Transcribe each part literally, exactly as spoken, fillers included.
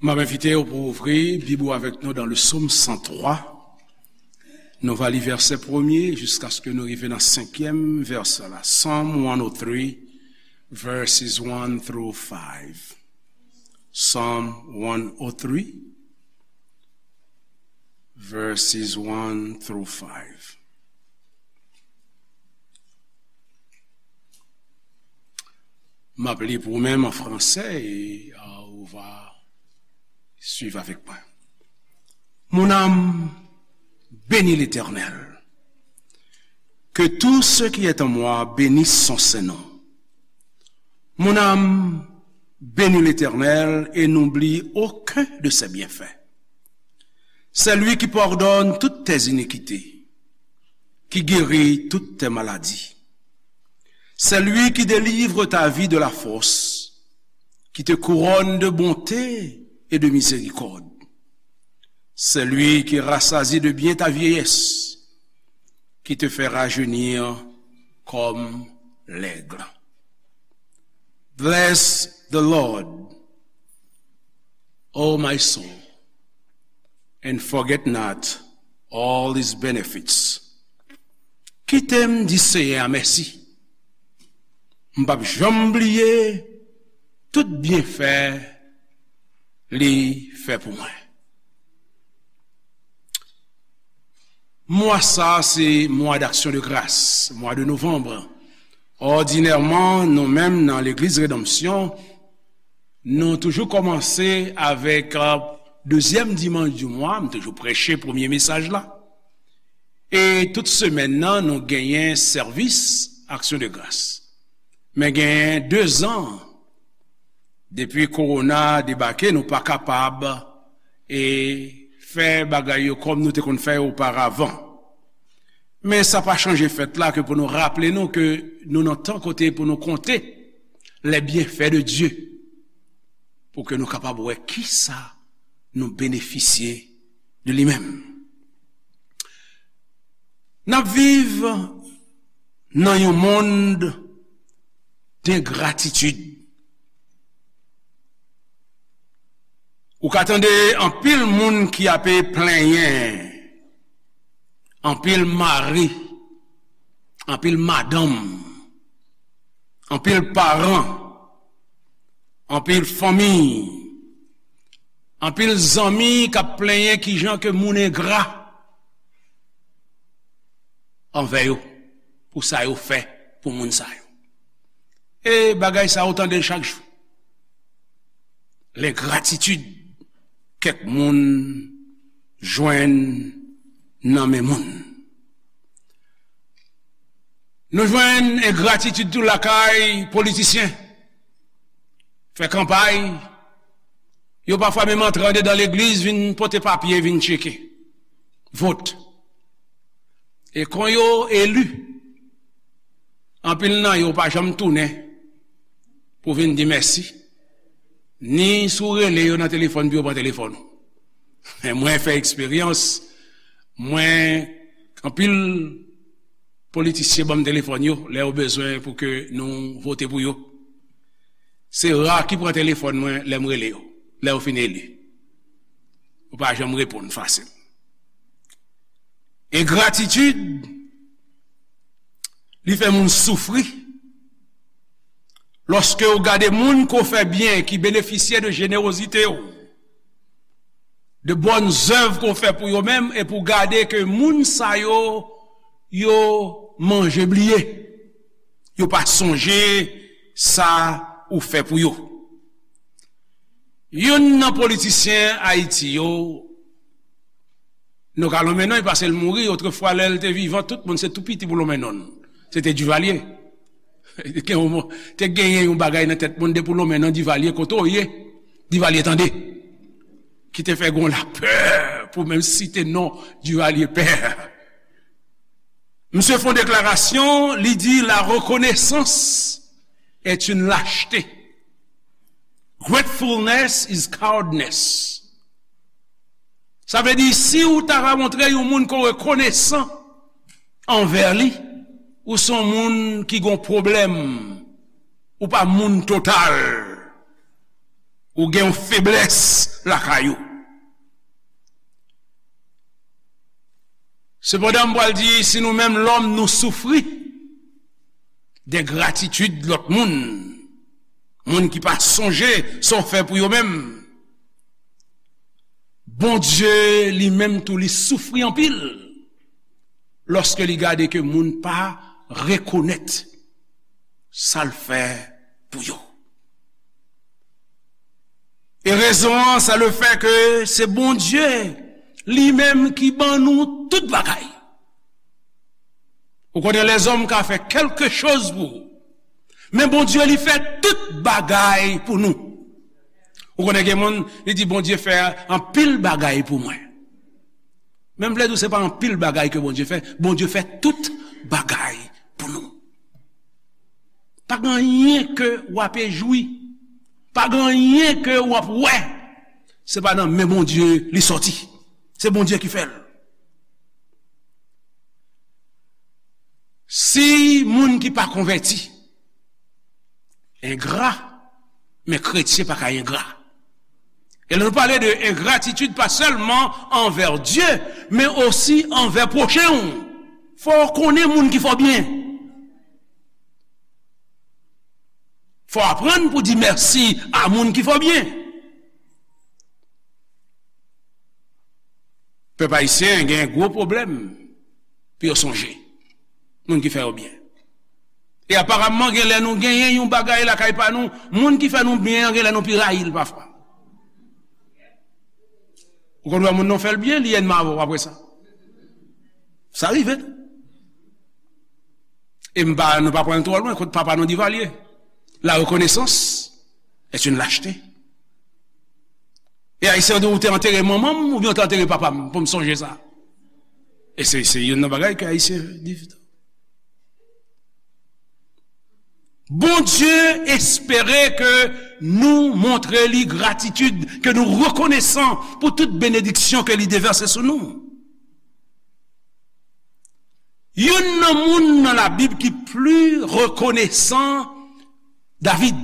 M ap envite w pou ouvri Bib ou avèk nou dans le Psaume cent trois. Nou va li vèsè premye jiskaske nou rive nan senkyèm vèsè la. Psalm one oh three, verses one through five. Psalm one oh three, verses one through five. M ap li pou ou menm an fransè e, euh, ou va suivre avec moi. Mon âme, bénis l'Éternel. Que tout ce qui est en moi bénisse son saint nom. Mon âme, bénis l'Éternel et n'oublie aucun de ses bienfaits. C'est lui qui pardonne toutes tes iniquités, qui guérit toutes tes maladies. C'est lui qui délivre ta vie de la fosse, qui te couronne de bonté et de miséricorde. C'est lui qui rassasie de bien ta vieillesse, qui te fait rajeunir comme l'aigle. Bless the Lord, O my soul, and forget not all his benefits. Kite m di Seyè a mèsi. M p ap janm bliye tout byenfè li fè pou mwen. Mwa sa a se mwa d'action de grâce, mwa de novanm. Òdinèman, nou menm nan Legliz Redanmsyon, nou toujou kòmanse avèk, euh, dezyèm dimanch di mwa, m toujou preche premye mesaj la. E tout semèn nan, nou genyen sèvis aksyon de gras. Men genyen dezan depi kowona debake, nou pa kapab, e, fè bagay yo kòm nou te konn fè yo oparavan. Men sa pa chanje fèt la ke pou nou raple nou ke nou nan tan kote pou nou konte les bienfaits de Dieu, pou ke nou kapab wè kisa nou benefisye de li menm. N ap viv nan yon mond dengratitid. Ou ka tande anpil moun ki ape plenyen, anpil mari, anpil madanm, anpil paran, anpil fanmi, anpil zanmi k ap plenyen kijan ke moun engra anvè yo, pou sa yo fè pou moun sa yo. E bagay sa yo tande l chak jou. Lengratitid kèk moun jwenn nan men moun. Nou jwenn engratitid tou lakay politisyen. Fè kanpay, yo pafwa menm antre andedan legliz, vin pote papye, vin tcheke. Vot. E kon yo eli, anpil nan yo pa janm tounen pou vin di mèsi. Ni si w rele yo nan telefòn pou yo pran telefòn ou. Men mwen fè eksperyans, mwen, anpil politisyen ban m telefòn yo lè yo bezwen pou ke nou vote pou yo. Se ra ki pran telefòn mwen lè m rele yo, lè yo fin eli. Yo pa janm reponn fasil. Engratitid, li fè moun soufri. Lòske w gade moun ke w fè byen, ki benefisye de jenerozite w, de bòn zèv ke w fè pou yo menm, epi w gade ke moun sa yo, yo manje bliye. Yo pa sonje sa ou fè pou yo. Youn nan politisyen Ayiti yo, nou ka lonmen non, paske l mouri, otrefwa, lè l te vivan, tout moun se tou piti pou lonmen non l. Se te Duvalier. Gen yon mo-, te genyen yon bagay nan tèt moun, depi w lonmen non Duvalier, kote w ye, Duvalier tande. Ki te fè gon lapè pou menm site non Duvalier pè. Misye fè yon deklarasyon, li di, la reconnaissance est une lâcheté. Gratefulness is cowardice. Sa vle di, si w ta ka montre yon moun ke w rekonesan anvè li, ou se yon moun ki gon pwoblèm, ou pa moun total. Ou gen yon feblès lakay ou. Sepandan, m pral di, si nou menm lòm, nou soufri de gratitid lòt moun, moun ki pa sonje sa w fè pou yo menm, Bondye li menm tou, li soufri anpil lòske li gade ke moun pa rekonèt sa l fè pou yo. E rezon an, se le fè ke se Bondye li menm ki ban nou tout bagay. Ou konnen, lèzòm ka fè kèlke choz pou ou, men Bondye li fè tout bagay pou nou. Ou konnen, gen moun, li di, "Bondye fè anpil bagay pou mwen." Men m vle di w, se pa anpil bagay ke Bondye fè. Bondye fè tout bagay pou nou. Pa gen anyen ke w ape jwi. Pa gen anyen ke w ap wè. Se pa nan men Bondye li sòti. Se Bondye ki fè l. Si moun ki pa konvèti engra, men kretyen pa ka engra. E lè nou pale de engratitid, pa sèlman anvè Dye, men osi anvè pwochen w. Fò w konnen moun ki fè w byen. Fò w aprann pou di mèsi a moun ki fè w byen. Pèp ayisyen gen gwo pwoblèm pou yo sonje moun ki fè yo byen. E aparamman, gen lè nou genyen yon bagay lakay pa nou, moun ki fè nou byen an, gen lè nou pi rayi l pafwa. Ou konn wè moun nan fè l byen, li ènmi avè w apre sa. Sa rive tou. E m pa, nou pa pran l twò lwen, kot papa nou Divalye. La reconnaissance est une lâcheté. E Ayisyen di, "Ou te antere manman m oubyen ou te antere papa m pou m sonje sa?" E se, se youn nan bagay ke Ayisyen viv tou. Bondye espere ke nou montre li gratitid, ke nou rekonesan pou tout benediksyon ke li devèse sou nou. Youn nan moun nan Labib ki pli rekonesan, David.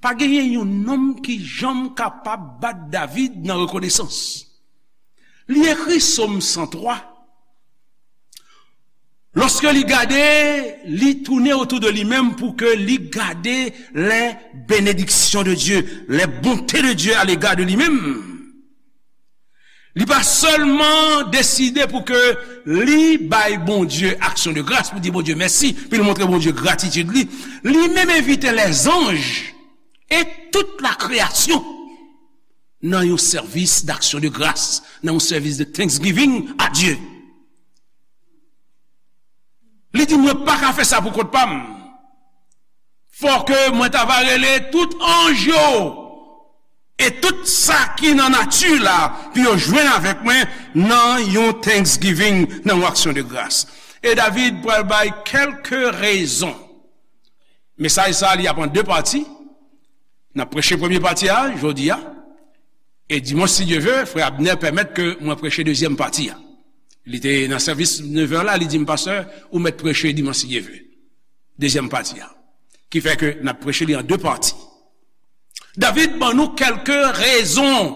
Pa genyen yon nonm ki janm kapab bat David nan rekonesans. Li ekri Sòm san twa. Lòske li gade, li tounen otou de li menm pou ke li gade les bénédictions de Dieu, les bontés de Dieu à l'égard de li menm. Li pa sèlman deside pou ke li bay Bondye aksyon de gras, pou di Bondye mèsi, pou li montre Bondye gratitid li. Li menm envite lèzanj e tout lakreyasyon nan yon sèvis d'action de grâce, nan yon sèvis de thanksgiving a Dye. Li di, "Mwen pa ka fè sa pou kont pa m. Fò ke mwen ta va rele tout anj yo e tout sa ki nan nati la pou yo jwenn avèk mwen nan yon thanksgiving, nan yon aksyon de gras." E David pral bay kèlke rezon. Mesaj sa a, li ap an de pati. N ap preche premye pati a jodi a. E dimanch, si Dye ve, frè Abner pèmèt ke mwen preche dezyèm pati a. Li te nan sèvis nevè la, li di m, "Pastè, ou mèt preche dimanch, si Dye ve. Dezyèm pati a." Ki fè ke n ap preche li an de pati. David ban nou kèlke rezon,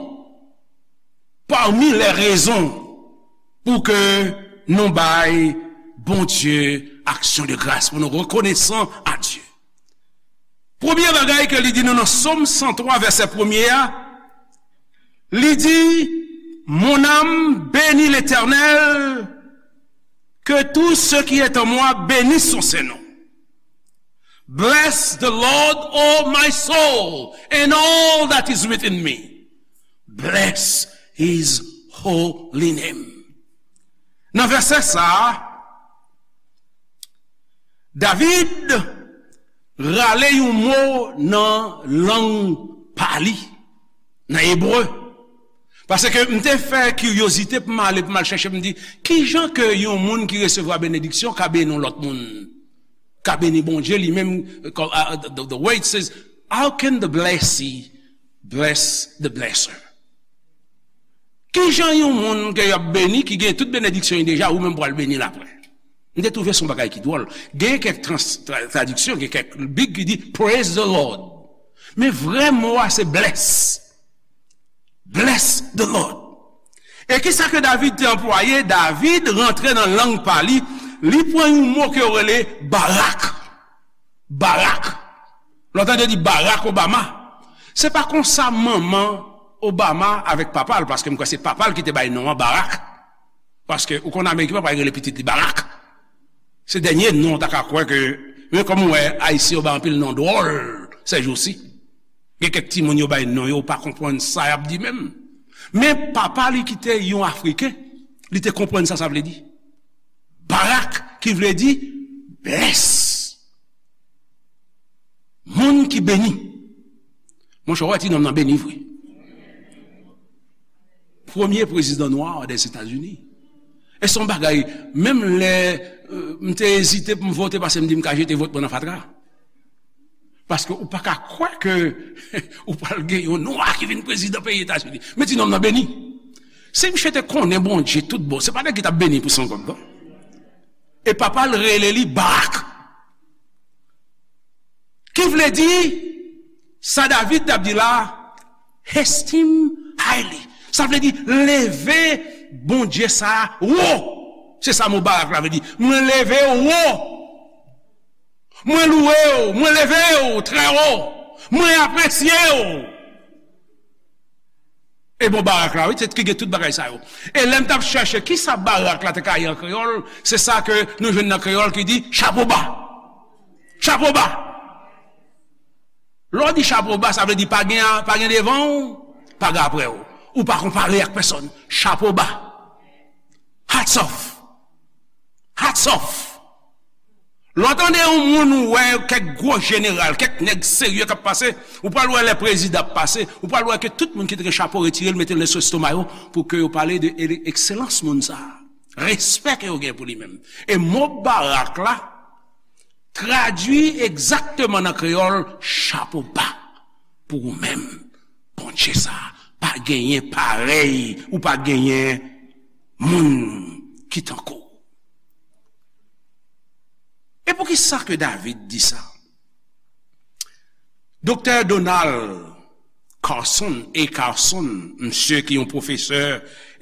pami lè rezon, pou ke nou bay Bondye aksyon de gras, pou nou rekonesan a Dye. Premye bagay ke li di nou nan Sòm san twa, vèsè premye a, li di, "Mon âme bénit l'Éternel, que tout ce qui est en moi bénisse son saint nom. Bless the Lord, O my soul, and all that is within me. Bless his holy name." Nan vèsè sa a, David rale yon mo nan lang pa li, nan ebre. Paske m te fè kiryozite pou m ale, pou m al chèche, m di, "Kijan ke yon moun ki resevwa benediksyon ka beni yon lòt moun? Ka beni Bondye li menm?" The, the word says, "How can the blessee bless the blesser?" Kijan yon moun ke y ap beni, ki gen tout benediksyon li deja, ou menm pral beni l apre? M te twouve se yon bagay ki dwòl. Gen kèk trans-, tra-, tradiksyon, gen kèk Bib ki di, "Praise the Lord." Men vrè mo a se bless. Bless the Lord. E kisa ke David te anplwaye? David rantre nan lang pa li, li pran yon mo ke yo rele barak. Barak. Lè w tande yo di Barack Obama. Se pa konsa manman Obama avèk papa l, paske m kwè se papa l ki te bay non an Barack. Paske ou konn Ameriken pa pral rele pitit li Barack. Se dènye non w ta ka kwè ke, men kòm ou wè, Ayisyen yo bay anpil non dwòl sèjousi. Gen kèk timoun yo bay non yo, ou pa konprann sa y ap di menm. Men papa li ki te yon Afriken, li te konprann sa sa vle di. Barak, ki vle di bless. Moun ki beni. Monchè, w wè ti nonm nan beni vre. Premye prezidan nwa dèzetazini. E se yon bagay, menm lè, euh, m te ezite pou m vote, paske m di m ka jete vòt mwen nan fatra. Paske ou pa ka kwè ke ou pral gen yon nwa ki vin prezidan peyi Etazini. Men ti nonm nan beni. Si misye te konnen Bondye tout bon, se pa nèg ki t ap beni pou san kòb, non. E papa l rele li Barak. Ki vle di, sa David t ap di la, esteem highly. Sa vle di, leve Bondye sa a wo. Se sa mo Barak la vle di. Mwen leve w wo. Mwen louwe w, mwen leve w trè wo. Mwen apresye w. E bon, Barak la, wi, se ki gen tout bagay sa yo. E lè m t ap chèche kisa Barak la te ka ye an kreyòl, se sa ke nou jwenn nan kreyòl ki di chapo ba. Chapo ba. Lè w di chapo ba, sa vle di pa gen, pa gen devan w, pa gen aprè w. Ou pa konpare ak pèsonn. Chapo ba. Hats off. Hats off. Lè w tande yon moun ou wè kèk gwo jeneral, kèk nèg serye k ap pase, ou pral wè lè prezidan ap pase, ou pral wè ke tout moun ki te gen chapo retire l, mete l sou estoma yo, pou ke yo pale de ele-, ekselans moun sa a. Respè ke yo gen pou li menm. E mo Barak la, tradui egzakteman nan kreyòl, chapo ba pou ou menm. Bondye sa a, pa genyen parèy, ou pa genyen moun ki tankou w. E poukisa ke David di sa? Doktè Donald Carson, A. Carson, msye ki yon pwofesè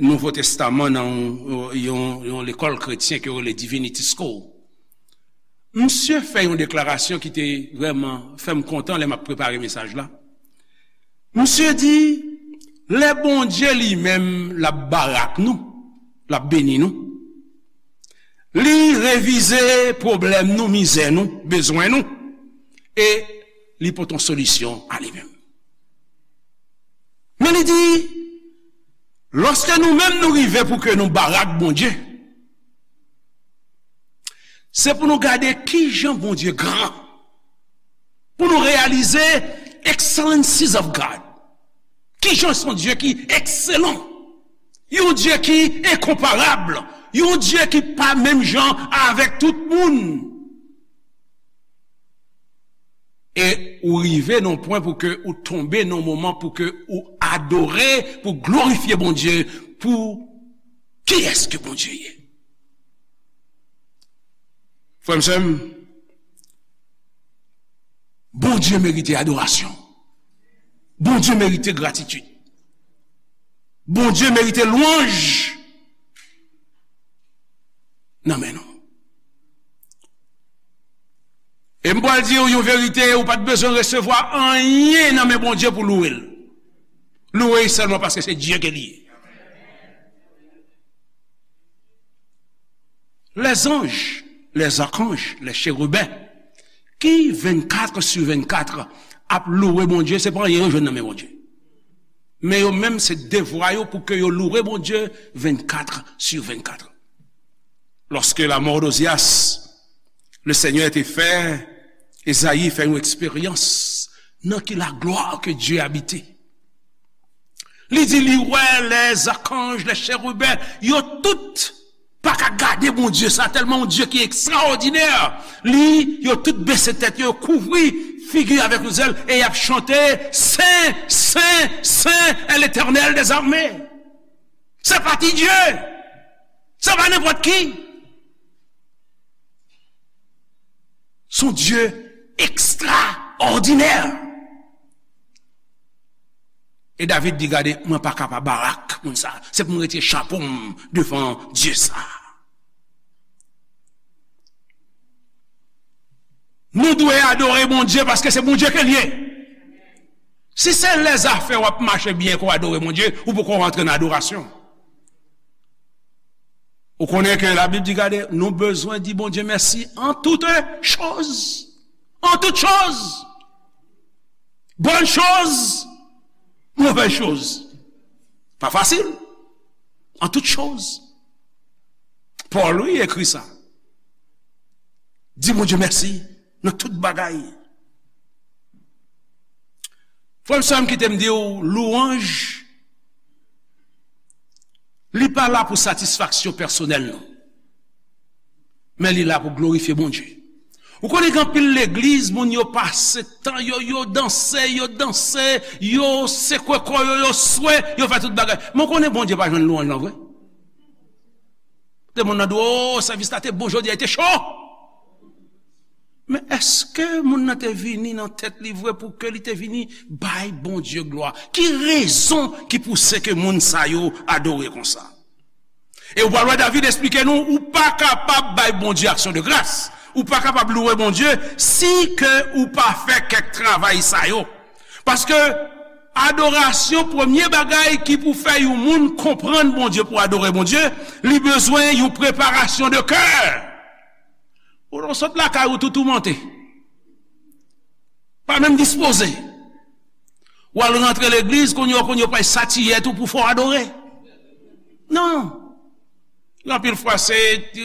Nouvo Testaman nan yon, yon, yon lekòl kretyen ke yo rele Divinity School. Msye fè yon deklarasyon ki te vrèman fè m kontan lè m ap prepare mesaj la. Msye di, lè Bondye li menm l ap barak nou, l ap beni nou, li revize pwoblèm nou, mizè nou, bezwen nou, e li pote yon solisyon a li menm. Men li di, lòske nou menm nou rive pou ke nou barak Bondye, se pou nou gade kijan Bondye gran. Pou nou reyalize excellencies of God. Kijan se yon Dye ki ekselan. Yon Dye ki enkonparab. Yon Dye ki pa menm jan avèk tout moun. E ou rive nan yon pwen pou ke ou tonbe nan yon moman pou ke ou adore, pou glorifye Bondye, pou kiyès ke Bondye ye. Frè m, sè m, Bondye merite adorasyon. Bondye merite gratitid. Bondye merite lwanj nan men nou. E m pral di w yon verite, ou pa t bezwen resevwa anyen nan men Bondye pou louwe l. Louwe l sèlman paske se Dye ke li ye. Lèzanj, lèzakanj, lècheriben, ki vennkat sou vennkat ap louwe Bondye, se pa anyen yo jwenn nan men Bondye. Men yo menm, se devwa yo pou ke yo louwe Bondye vennkat sou vennkat. Lorsque la mort d'Ozias, le Seigneur était fait, Ezayi fè yon eksperyans nan ki laglwa ke Dye abite. Li di li wè lèzakanj, lècheriben, yo tout pa ka gade Bondye sa, tèlman yon Dye ki ekstraòdinè. Li, yo tout bese tèt yo, yo kouvri figi avèk yon zèl, e y ap chante, Sen, sen, sen est l'Éternel des armées. Se pa ti Dye. Se pa nenpòt ki. Se yon Dye ekstraòdinè. E David di, "Gade, mwen pa kapab, Barak, moun sa. Se pou m retire chapo m devan Dye sa." Nou dwe adore Bondye paske se Bondye ke l ye. Si se lèzafè w ap mache byen ke w adore Bondye, ou poko rantre nan adorasyon. Ou konnen ke Labib di, gade, nou bezwen di Bondye mèsi en toutes choses. En toutes choses. Bonnes choses, mauvaises choses. Pa fasil. En toutes choses. Pòl, wi, ekri sa. Di Bondye mèsi nan tout bagay. Frè m, sè m, kite m di w, lwanj, li pa la pou satisfaksyon pèsonèl nou. Men li la pou glorifye Bondye. Ou konnen gen anpil legliz, moun yo pase tan yo, yo danse, yo danse, yo sekwe kò yo, yo swe, yo fè tout bagay. Men w konnen Bondye pa jwenn lwanj lan vre. Te moun nan di w, "O, sèvis la te bon jodi a, li te cho." Men èske moun nan te vini nan tèt li vre pou ke li te vini bay Bondye glwa? Ki rezon ki pouse ke moun sa yo adore konsa? E ou pral wè David esplike nou, ou pa kapab bay Bondye aksyon de gras. Ou pa kapab louwe Bondye si ke ou pa fè kèk travay sa yo. Paske adorasyon, premye bagay ki pou fè yon moun konprann Bondye, pou adore Bondye, li bezwen yon preparasyon de kè. Ou sot lakay ou tou toumante. Pa menm dispoze. W al rantre legliz, kounye a, kounye a, w pral satiyèt ou pou fè w adore. Non. Anpil fwa, se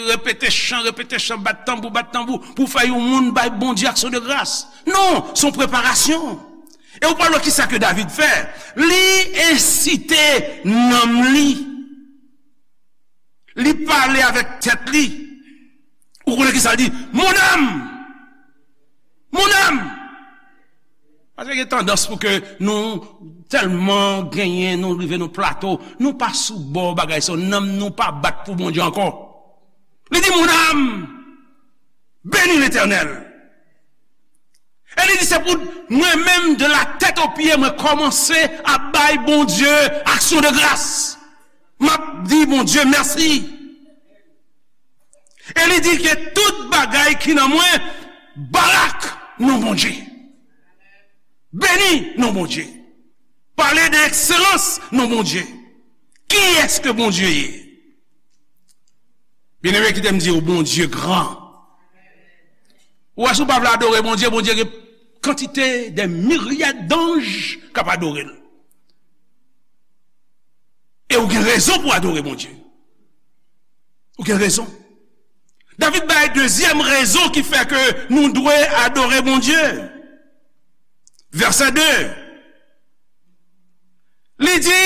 repete chan, repete chan, bat tanbou, bat tanbou, pou fè yon moun bay Bondye aksyon de gras. Non, se yon preparasyon. E ou pral wè kisa ke David fè. Li ensite nanm li. Li pale avèk tèt li. Ou konnen kisa l di? Mon âme! Mon âme! Paske gen tandans pou ke nou tèlman genyen, nou rive nan plato, nou pa sou bò bagay sa, nanm nou pa bat pou Bondye ankò. Li di, mon âme, bénis l'Éternel. E li di, se pou mwen menm, de la tête aux pieds, mwen kòmanse ap bay Bondye aksyon de gras. M ap di Bondye mèsi. E li di ke tout bagay ki nan mwen, barak non Bondye. Beni non Bondye. Pale de ekselans non Bondye. Kiyès ke Bondye ye? Byeneme, kite m di w, Bondye gran. Ou wè, si w pa vle adore Bondye, Bondye gen kantite, de miryad danj k ap adore l. E ou gen rezon pou adore Bondye. Ou gen rezon. David bay dezyèm rezon ki fè ke nou dwe adore Bondye. Vèsè de. Li di,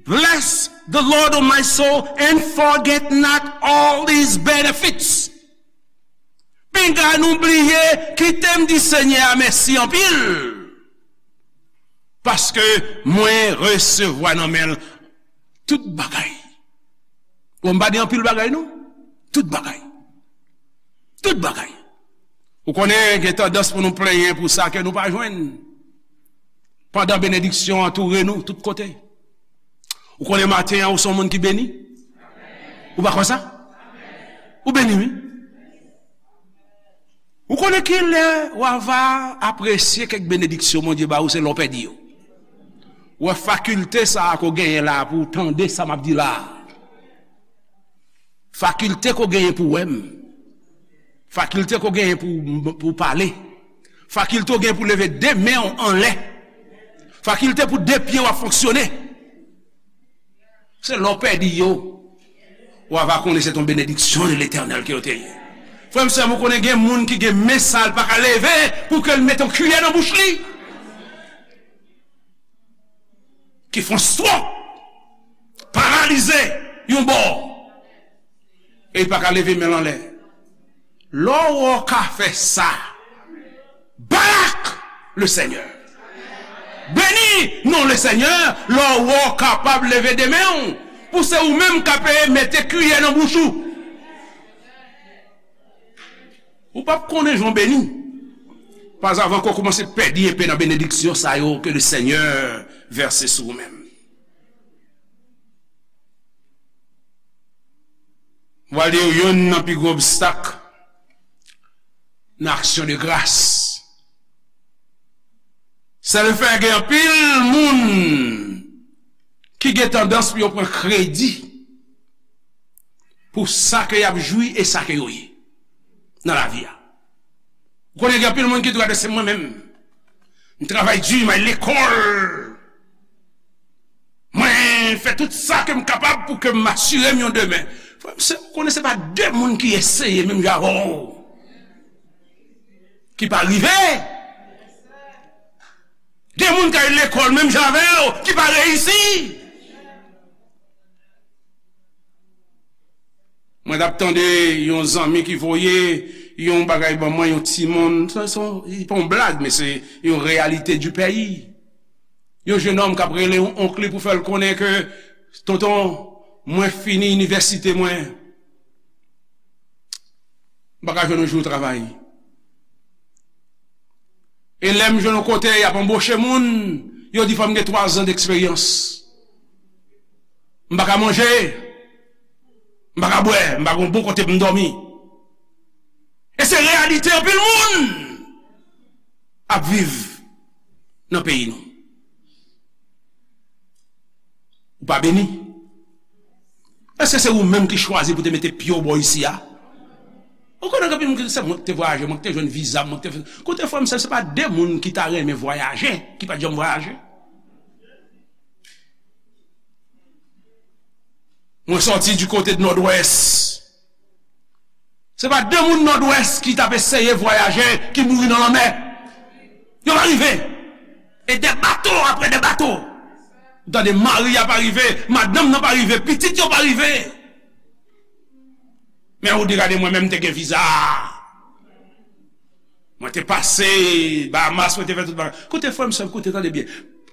"Bless the Lord, O my soul, and forget not all his benefits." Pinga nou bliye, kite m di Senyè a mèsi anpil. Paske mwen resevwa nan men l tout bagay. Bon, m pa di anpil bagay, non. Tout bagay. Tout bagay. Ou konnen, gen tandans pou nou plenyen pou sa ke nou pa jwenn. Pandan benediksyon antoure nou tout kote. Ou konnen maten an, ou se yon moun ki beni? Ou pa kwè sa? Ou beni, wi. Ou konnen ki lè w a va apresye kèk benediksyon Bondye ba ou, se lè w pèdi yo. Ou wè fakilte sa a ke w genyen la pou w tande sa m ap di la a. Fakilte ke w genyen pou w wè m. Fakilte ke w genyen pou, pou w pale. Fakilte w genyen pou w leve de men w anlè. Fakilte pou de pye w ap fonksyone. Se lè w pèdi yo, w a va konnen se yon benediksyon de Letènèl ke yo te ye. Frè m, sè m, ou konnen gen moun ki gen men sa l pa ka leve pou ke l mete yon kiyè nan bouch li. Ki fè yon stroke, paralize yon bò, e li pa ka leve men l anlè. Lè w wè w ka fè sa, barak le Senyè. Beni non le Senyè, lè w wè w kapab leve de men w, pou se ou menm k ap mete kiyè nan bouch ou. Ou p ap konnen jan w beni, pazavan ke w kòmanse pèdi enpe nan benediksyon sa yo ke le Senyè vèse sou ou menm. Mwen di w, youn nan pi gwo obstak nan aksyon de gras, se le fè gen anpil moun ki gen tandans pou yo pran kredi pou sa ke y ap jwi e sa ke yo ye nan lavi a. Ou konnen gen anpil moun ki di, "Gade, se mwen menm. M travay di, m al lekòl. Mwen fè tout sa ke m kapab pou ke m asire m yon demen." Frè m, se, ou konnen se pa de moun ki eseye menm jan avè w ki pa rive. Gen moun k al lekòl menm jan avè w ki pa reyisi. Mwen t ap tande yon zanmi ki voye yon bagay ban mwen, yon timoun. Se, se, se pa yon blag, men se yon reyalite di peyi. Yon jenòm k ap rele yon onk li pou fè l konnen ke, "Tonton, mwen fini inivèsite mwen. M pa ka jwenn yon jou travay." E lè m jwenn yon kote y ap anboche moun, yo di fò m gen twa zan deksperyans. M pa ka manje, m pa ka bwè, m pa gen yon bon kote pou m dòmi. E se reyalite anpil moun ap viv nan peyi nou. Ou pa beni? Èske se ou menm ki chwazi pou te mete pye w bò isi a? Ou konnen gen anpil moun ki di, "Se mwen ki te vwayaje, mwen ki te jwenn viza, mwen ki te fè." Koute, frè m, sè, se pa de moun ki ta renmen vwayaje ki pa t janm vwayaje. Mwen sòti di kote Nòdwès. Se pa de moun Nòdwès ki t ap eseye vwayaje ki mouri nan lanmè. Yo pa rive. E de bato apre de bato. Ou tande mari a pa rive, madanm nan pa rive, pitit yo pa rive. Men ou di, "Gade, mwen menm te gen viza. Mwen te pase Bahamas, mwen te fè tout bagay." Koute, frè m, sè m, koute, tande byen.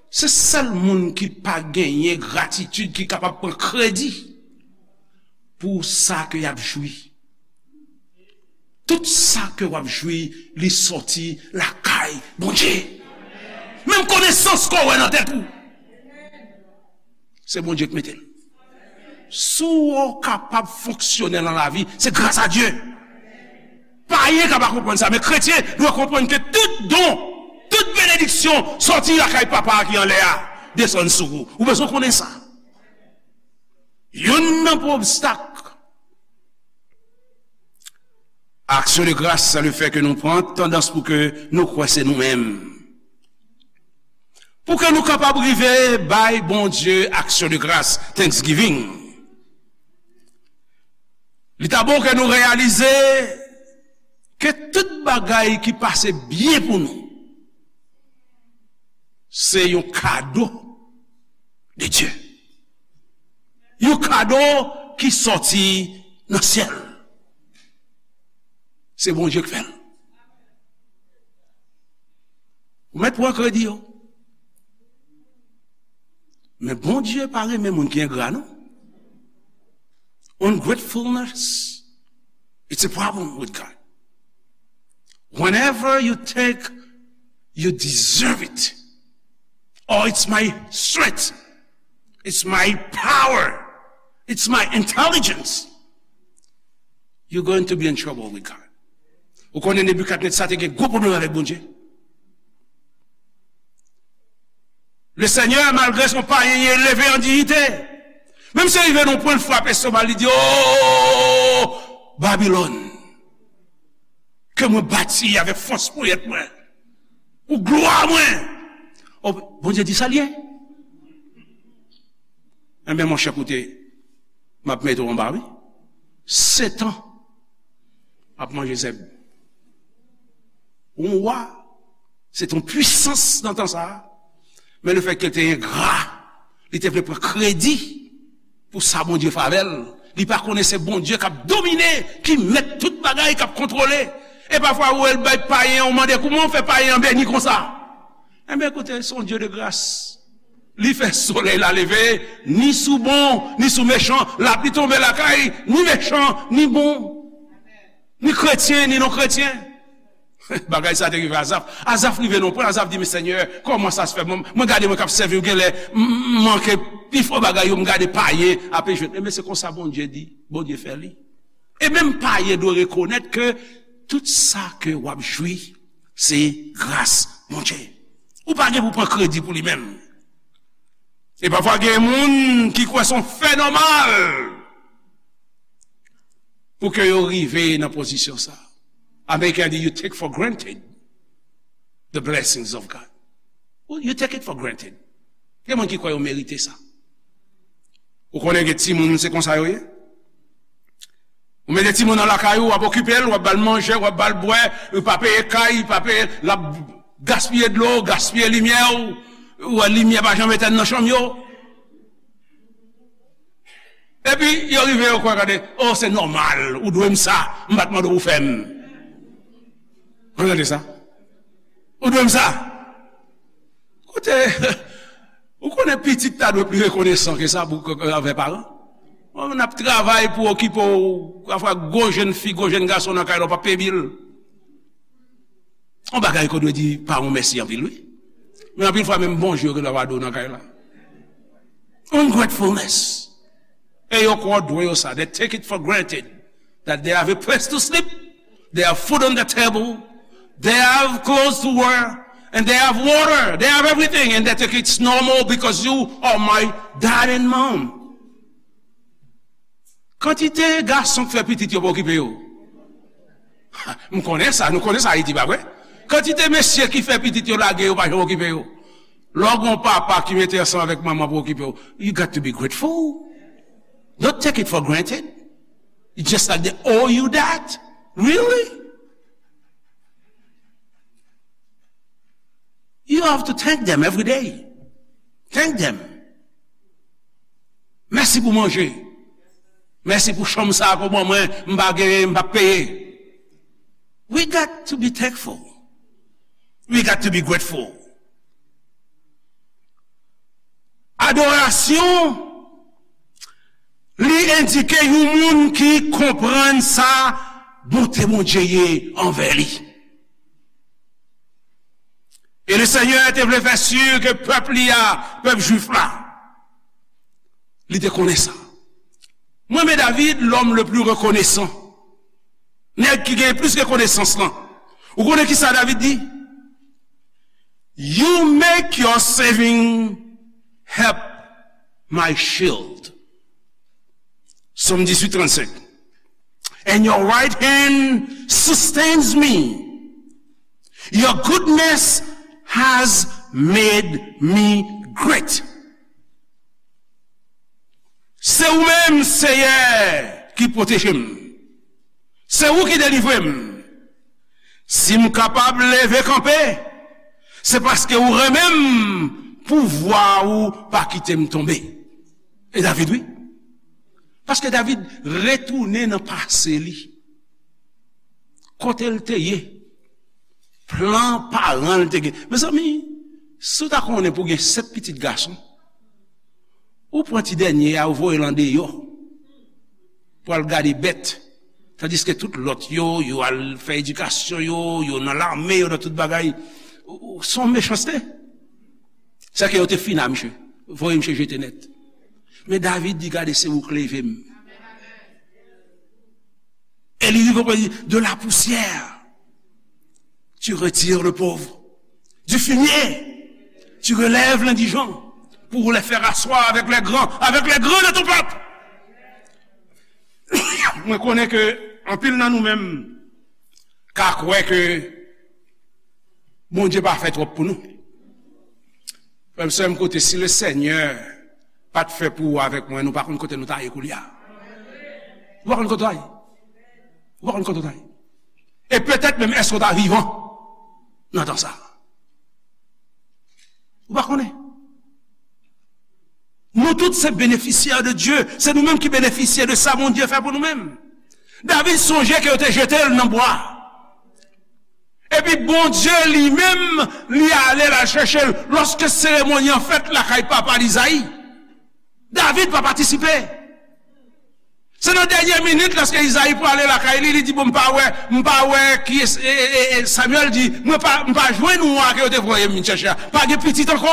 Se sèl moun ki pa genyen gratitid ki kapab pran kredi pou sa ke y ap jwi. Tout sa ke w ap jwi, li sòti lakay Bondye. Menm konesans ke w wè nan tèt ou, se Bondye ki mete l. Si w kapab fonksyone nan lavi, se gras a Dye. Payen ka pa konprann sa, men kretyen dwe konprann ke tout don, tout benediksyon sòti lakay Papa a ki anlè a, desann sou ou. Ou bezwen konnen sa. Youn nan pwen obstak aksyon de gras, se le fè ke nou pran tandans pou ke nou kwè se nou menm. Pou ke nou kapab rive bay Bondye aksyon de gras, thanksgiving, li ta bon ke nou reyalize ke tout bagay ki pase byen pou nou, se yon kado de Dye. Yon kado ki sòti nan syèl. Se Bondye ki fè l. Ou mèt pran kredi yo. Men Bondye pa renmen moun ki engra, non. Ungratefulness, it's a problem with God. Whenever you take, you deserve it. Oh, it's my strength. It's my power. It's my intelligence. You're going to be in trouble with God. Ou konnen Nebikadnetza te gen gwo pwoblèm avèk Bondye. Le Senyè, malgre se yon payen, li eleve an diyite. Menm si rive nan pwen frape estomak li, li di, "O Babilòn, ke mwen bati avèk fòs ponyèt mwen, pou glwa mwen." O, Bondye di sa l ye. Enben, monchè, koute, m ap mete w anba, wi. Sèt an ap manje zèb. Yon wa, se te yon pwisans nan tan sa a. Men lefètke l te engra, li te vle pran kredi pou sa Bondye fè avè l. Li pa konnen se Bondye k ap domine, ki mèt tout bagay, k ap kontwole. E pafwa, ou wè l bay payen an, ou mande, "Kouman w fè payen an beni konsa?" Enben, koute, se yon Dye de gras. Li fè solèy la leve, ni sou bon, ni sou mechan, lapli tonbe lakay, ni mechan, ni bon, ni kretyen, ni non kretyen. Bagay sa te rive Azaf. Azaf rive nan pwen, Azaf di, "Men Senyè, kòman sa se fè? Mwen, mwen gade mwen k ap sèvi w, genlè m, m manke pifò bagay yo, m gade payen ape jwenn." Ebyen, se konsa Bondye di, Bondye fè li. E menm payen dwe rekonèt ke tout sa ke w ap jwi, se gras Bondye. Ou pa gen pou pran kredi pou li menm. E pafwa gen moun ki kwè se yon fè nòmal pou ke yo rive nan pozisyon sa. Ameriken di, "You take for granted the blessings of God." You take it for granted. Gen moun ki kwè yo merite sa. Ou konnen gen timoun, se konsa yo ye. Ou mete timoun nan lakay ou, w ap okipe l, w ap ba l manje, w ap ba l bwè, ou pa peye kay, pa peye, l ap gaspiye dlo, gaspiye limyè ou, ou wè limyè pa janm etèn nan chanm yo. Epi, yo rive, yo kwè, gade, "Oh, se nòmal, ou dwe m sa, m pa t mande w pou fè m." Ou tande sa? "Ou dwe m sa." Kote, ou konnen pitit ta dwe pli rekonesan ke sa pou, ke, ke anvè paran. Bon, n ap travay pou okipe w, pafwa gwo jèn fi, gwo jèn gason nan kay la, w p ap peye bil. Yon bagay ke w dwe di paran w mèsi anpil, wi. Men anpil fwa, menm bonjou yo gen dwa pa di w nan kay la. Ungratefulness. E yo kwè w dwe yo sa. They take it for granted that they have a place to sleep, they have food on the table, they have clothes to wear, and they have water, they have everything, and they think it's normal because you are my dad and mom. Kantite gason k fè pitit yo pa okipe yo. M konnen sa, nou konnen sa Ayiti, pa vre? Kantite mesye ki fè pitit yo lage yo pa janm okipe yo. Lè w gen yon papa ki mete ansanm avèk manman pou okipe w, you got to be grateful. Don't take it for granted. It's just like they owe you that. Really? You have to thank them every day. Thank them. Mèsi pou manje. Mèsi pou chanm sa a ke w ban mwen, m pa genyen, m p ap peye. We got to be thankful. We got to be grateful. Adorasyon, li endike yon moun ki konprann sa bonte Bondye ye anvè li. E le Senyè te vle fè si ke pèp li a, pèp jwif la, li te konnen sa. Mwen renmen David, l'homme le plus reconnaissant. Nèg ki gen plis rekonesans lan. Ou konnen ki sa David di? "You make your saving help my shield." Sòm dizuit trannsenk. "And your right hand sustains me. Your goodness has made me great." Se ou menm, Seyè, ki pwoteje m. Se ou ki delivre m. Si m kapab leve kanpe, se paske ou renmen m, pouvwa ou pa kite m tonbe. E David, wi. Paske David retounen nan pase li. Kote l te ye? Plan paran l te gen. Mezanmi, si w ta konnen pou w gen sèt pitit gason, ou pran ti dènye a, ou voye l andeyò pou al gade bèt. Tandiske tout lòt yo, yo al fè edikasyon yo, yo nan lame, yo nan tout bagay. Ou, ou, se yon mechanste. Sèke yo te fina misye. Voye misye jete nèt. Men David di, "Gade, se ou k leve m." E li rive pou li di, "De la poussière, tu retires le pauvre. Du fumier, tu relèves l'indigent, pour les faire asseoir avec les grands, avec les grands de ton peuple." Mwen konnen ke anpil nan nou menm ka kwè ke Bondye pa fè twòp pou nou. Frè m, sè m, koute, si le Senyè pa t fè pou ou avèk mwen, nou pa konn kote nou ta ye koulye a. Ou pa konn kote w ta ye. Ou pa konn kote w ta ye. E petèt menm, èske w ta vivan nan tan sa a? Ou pa konnen. Nou tout se benefisyè de Dye. Se nou menm ki benefisye de sa Bondye fè pou nou menm. David sonje ke yo te jete l nan bwa. Epi Bondye li menm, li ale l al chèche l. Lòske seremoni an fèt lakay papa l Izayi, David pa patisipe. Se nan dènye minit, lòske Izayi prale lakay li, li di, "Bon, m pa wè, m pa wè kiyès," e, e, e, e Samyèl di, "Mwen pa, m pa jwenn wa ke yo te voye m vin chèche a. Pa gen pitit ankò.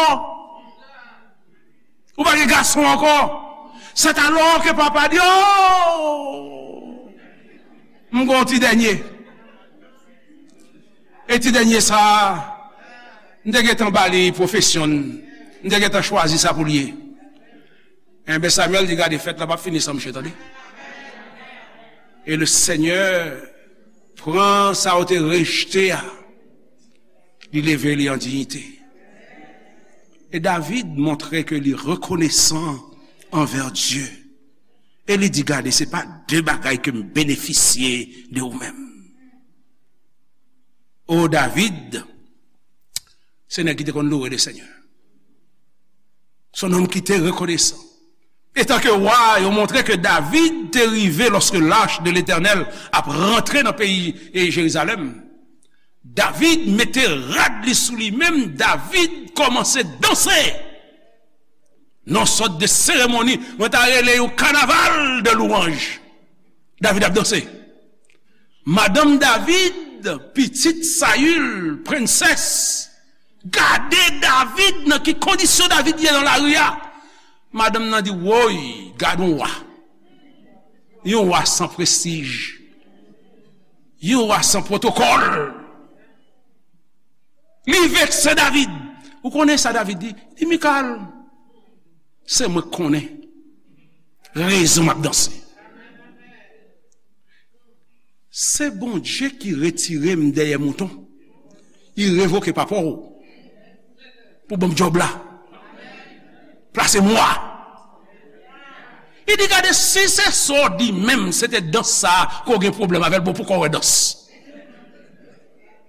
Ou pa gen gason ankò." C'est alors que papa di, "Oh! M gon ti dènye." E ti dènye sa a, m te gentan ba li pwofesyon n. M te gentan chwazi sa pou l ye. Enben, Samyèl di, "Gade, fèt la p ap fini san mouche, tande." E le Senyè pran sa yo te rejte a, li leve li an diyite. E David montre ke li rekonesan anvè Dye. E li di, "Gade, se pa de bagay ke m benefisye de ou menm." O David, se nèg ki te konn loure le Senyè. Se yon nonm ki te rekonesan. Etanke wa, yo montre ke David te rive lòske lach de Letènèl ap rantre nan peyi e Jerizalèm. David mete rad li sou li menm, David kòmanse danse. Nan sòt de seremoni, mwen ta rele yon kanaval de lwanj. David ap danse. Madanm David, pitit Sayil, prensès, gade David nan ki kondisyon David ye nan lari a. Madanm nan di, "Woy, gade yon wa. Yon wa san prestij. Yon wa san pwotokòl." Li vekse David. Ou konnen sa David di? Li di, "Mikal, se mwen k konnen rezon m ap danse. Se Bondye ki retire m dèyè mouton. Li revoke papa w pou ban m djòb la. Plase mwa." Li di, "Gade, si se sa w di menm, se te dans sa a ke w gen pwoblèm avè l, bon, poukò w wè dans?"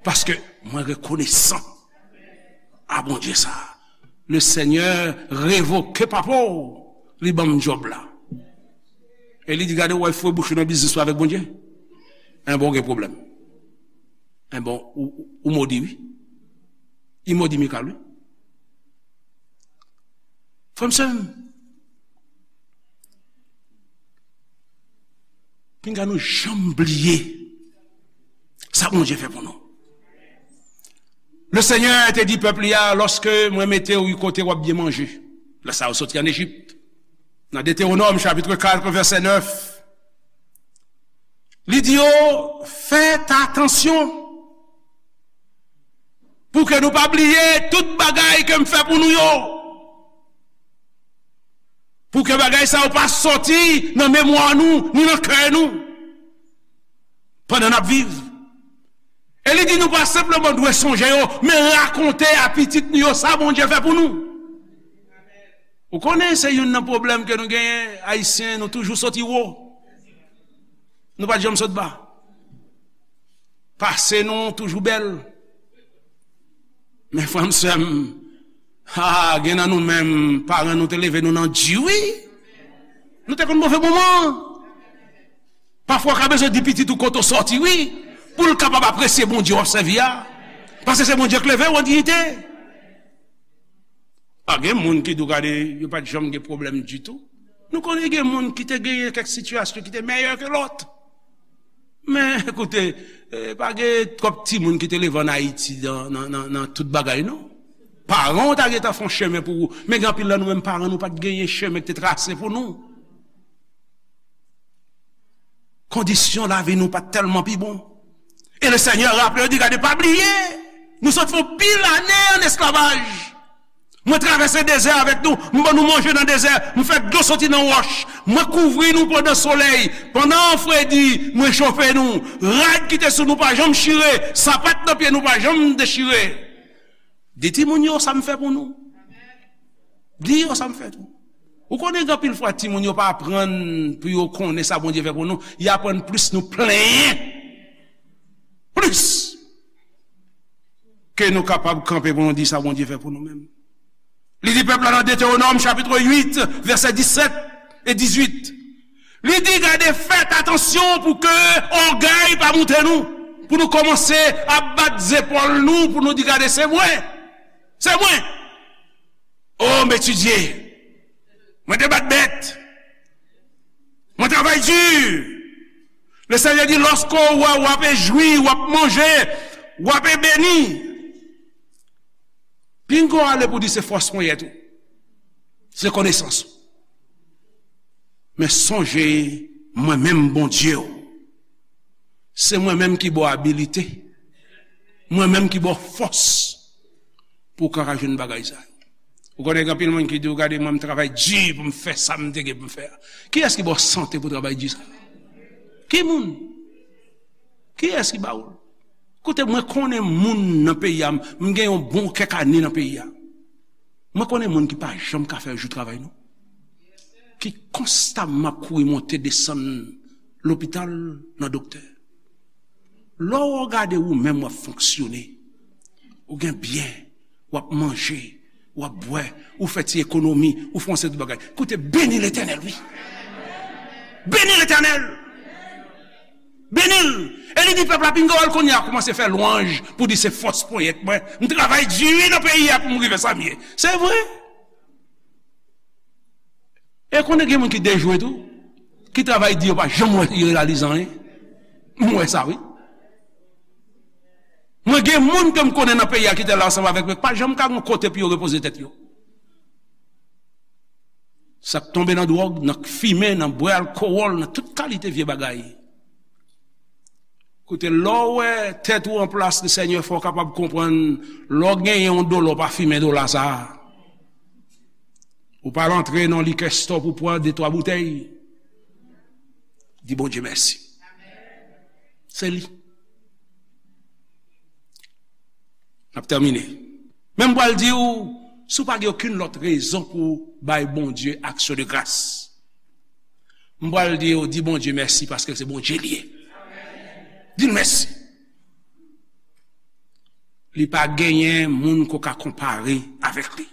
Paske mwen rekonesan a Bondye sa a. Le Senyè revoke papa w, li ban m djòb la. E li di, "Gade, w wè fwe bouch ou nan biznis ou avèk Bondye? Enben, w gen pwoblèm. Enben, ou, ou, ou modi, wi. Li modi Mikal, wi." Frè m, sè m, pinga nou janm bliye sa Bondye fè pou nou. Le Senyè te di pèp li a, "Lòske mwen mete w kote w ap byen manje." Lè sa yo soti ann Ejip. Nan Detewonòm, chapit kat, vèsè nèf, li di yo, "Fèt atansyon pou ke nou pa bliye tout bagay ke m fè pou nou yo." Pou ke bagay sa yo pa sòti nan memwa nou, ni nan kè nou, pandan n ap viv. E li di nou pa senpleman dwe sonje yo, men rakonte a pitit nou yo sa Bondye fè pou nou. Ou konnen se youn nan pwoblèm ke nou genyen, Ayisyen, nou toujou soti wo. Nou pa t janm sot ba. Pase nou toujou bèl. Men frè m, sè m, ha, gen nan nou menm, paran nou te leve nou nan di, wi. Nou te konn move moman. Pafwa, w ka bezwen di pitit ou kote w sòti, wi, pou l kapab apresye Bondye w ap sèvi a. Paske se Bondye k leve w an diyite. Pa gen moun ki di w, gade, yo pa t janm gen pwoblèm ditou. Nou konnen gen moun ki te genyen kèk sitiyasyon ki te mèyè ke lòt. Men, ekoute, eh, pa gen twòp timoun ki te leve ann Ayiti nan, nan, nan, nan tout bagay, non. Paran w ta gentan fè yon chemen pou ou. Men gen anpil nan nou menm, paran nou pa t genyen chemen ki te trase pou nou. Kondisyon lavi nou pa t tèlman pi bon. E le Senyè raple yo, di, "Gade, pa bliye, nou sot fè yon pil ane ann esklavaj. Mwen travèse dezè avèk nou, m ban nou manje nan dezè, m fè dlo soti nan wòch, mwen kouvri nou pandan solèy, pandan fredi, mwen chofe nou. Rad ki te sou nou pa janm chire, sapat nan pye nou pa janm dechire." Di timoun yo sa m fè pou nou. Di yo sa m fè tou. Ou konnen gen anpil fwa timoun yo pa aprann pou yo konnen sa Bondye fè pou nou, y aprann plis nou plenyen. Plis ke nou kapab kanpe pou nou di sa Bondye fè pou nou menm. Li di pèp la nan Detewonòm chapit uit, vèsè disèt e dizuit. Li di, "Gade, fèt atansyon pou ke ògèy pa moute nou, pou nou kòmanse ap bat zepòl nou, pou nou di, 'Gade, se mwen, se mwen. O, m etidye, mwen te bat bèt, mwen travay di. Lesenyè di, lòske w wè w ape jwi, w ap manje, w ape beni. Pinga w ale pou di se fòs ponyèt ou. Se konesans ou. Men sonje, mwen menm Bondye w. Se mwen menm ki ba w abilite. Mwen menm ki ba w fòs pou w ka jwenn bagay sa yo. Ou konnen gen anpil moun ki di w, gade mwen, m travay di pou m fè sa m te gen pou m fè a. Kiyès ki ba w sante pou travay di sa? Ki moun? Kiyès ki ba w l? Koute, mwen konnen moun nan peyi a, m gen yon bon kèk ane nan peyi a. Mwen konnen moun ki pa janm ka fè jou travay, non. Ki konstamman ap kouri monte desann lopital nan doktè. Lè w gade ou menm w ap fonksyone, ou gen byen, w ap manje, w ap bwè, ou fè ti ekonomi, ou fè yon seri de bagay. Koute, beni Letènèl, wi. Beni Letènèl. Beni l. E li di pèp la, pinga w al kounye a kòmanse fè lwanj pou di se fòs ponyèt mwen. M travay di wi nan peyi a pou m rive sa m ye. Se vre. E konnen gen moun ki dejwe tou, ki travay di yo pa janm wè yo reyalize anyen. M wè sa, wi. Mwen gen moun ke m konnen nan peyi a ki te la ansanm avèk mwen, pa janm ka gen kote pou yo repoze tèt yo. S ap tonbe nan dwòg, nan fimen, nan bwè alkowòl, nan tout kalite vye bagay. Koute, lè w wè tèt ou an plas, Lesenyè fè w kapab konprann, lè w genyen yon dola, w pa fimen dola sa a. Ou pa al antre nan likè stò pou pran de twa boutèy. Di Bondye mèsi. Se li. N ap tèmine. Men m pral di w, si w pa gen okenn lòt rezon pou w bay Bondye aksyon de gras, m pral di w, di Bondye mèsi paske se Bondye li ye. Di l mèsi. Li pa genyen moun ke w ka konpare avèk li.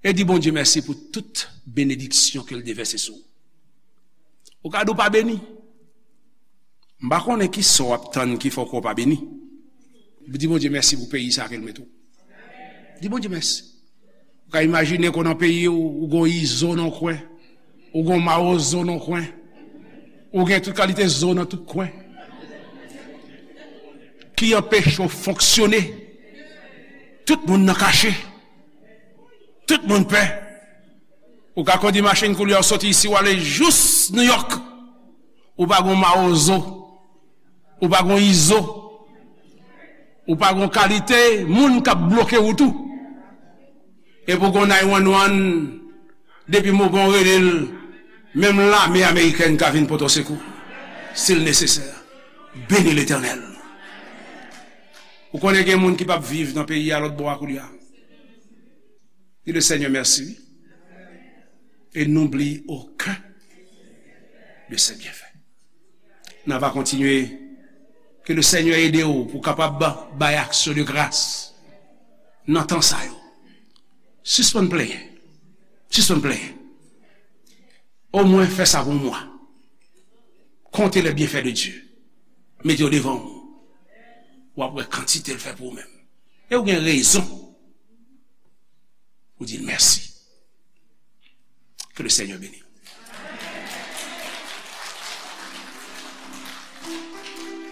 E di Bondye mèsi pou tout benediksyon ke l devèse sou ou. Ou ka di w pa beni. M pa konnen ki sa w ap tann ki fè w kwè w pa beni. Di Bondye mèsi pou peyi sa ke l mete w. Di Bondye mèsi. Ou ka imajine ke w nan peyi w, ou gon izo nan kwen, ou gon mawozo nan kwen, ou gen tout kalite zo nan tout kwen ki anpeche w fonksyone. Tout moun nan kache. Tout moun pè. Ou ka kondi machin koulye a, w soti isi, w ale jous Nouyòk. Ou pa gon mawozo. Ou pa gon izo. Ou pa gon kalite moun k ap bloke wout ou. Epi w gon nine one one, depi moman w rele l, menm lame amerikèn ka vin pote w sekou, si l nesesè. Beni Letènèl. Ou konnen gen moun ki p ap viv nan peyi a lòt bò a koulye a. Di le Seigneur merci, wi. Et n'oublie aucun de ses bienfaits. N a va kontinye. Ke le Seigneur ede w pou w kapab bay aksyon de gras nan tan sa yo. Sispann plenyen. Sispann plenyen. Omwen fè sa pou mwa. Konte les bienfaits de Dieu. Mete yo devan w. W ap wè kantite l fè pou ou menm. E w gen rezon pou di l mèsi. Ke le Seigneur beni.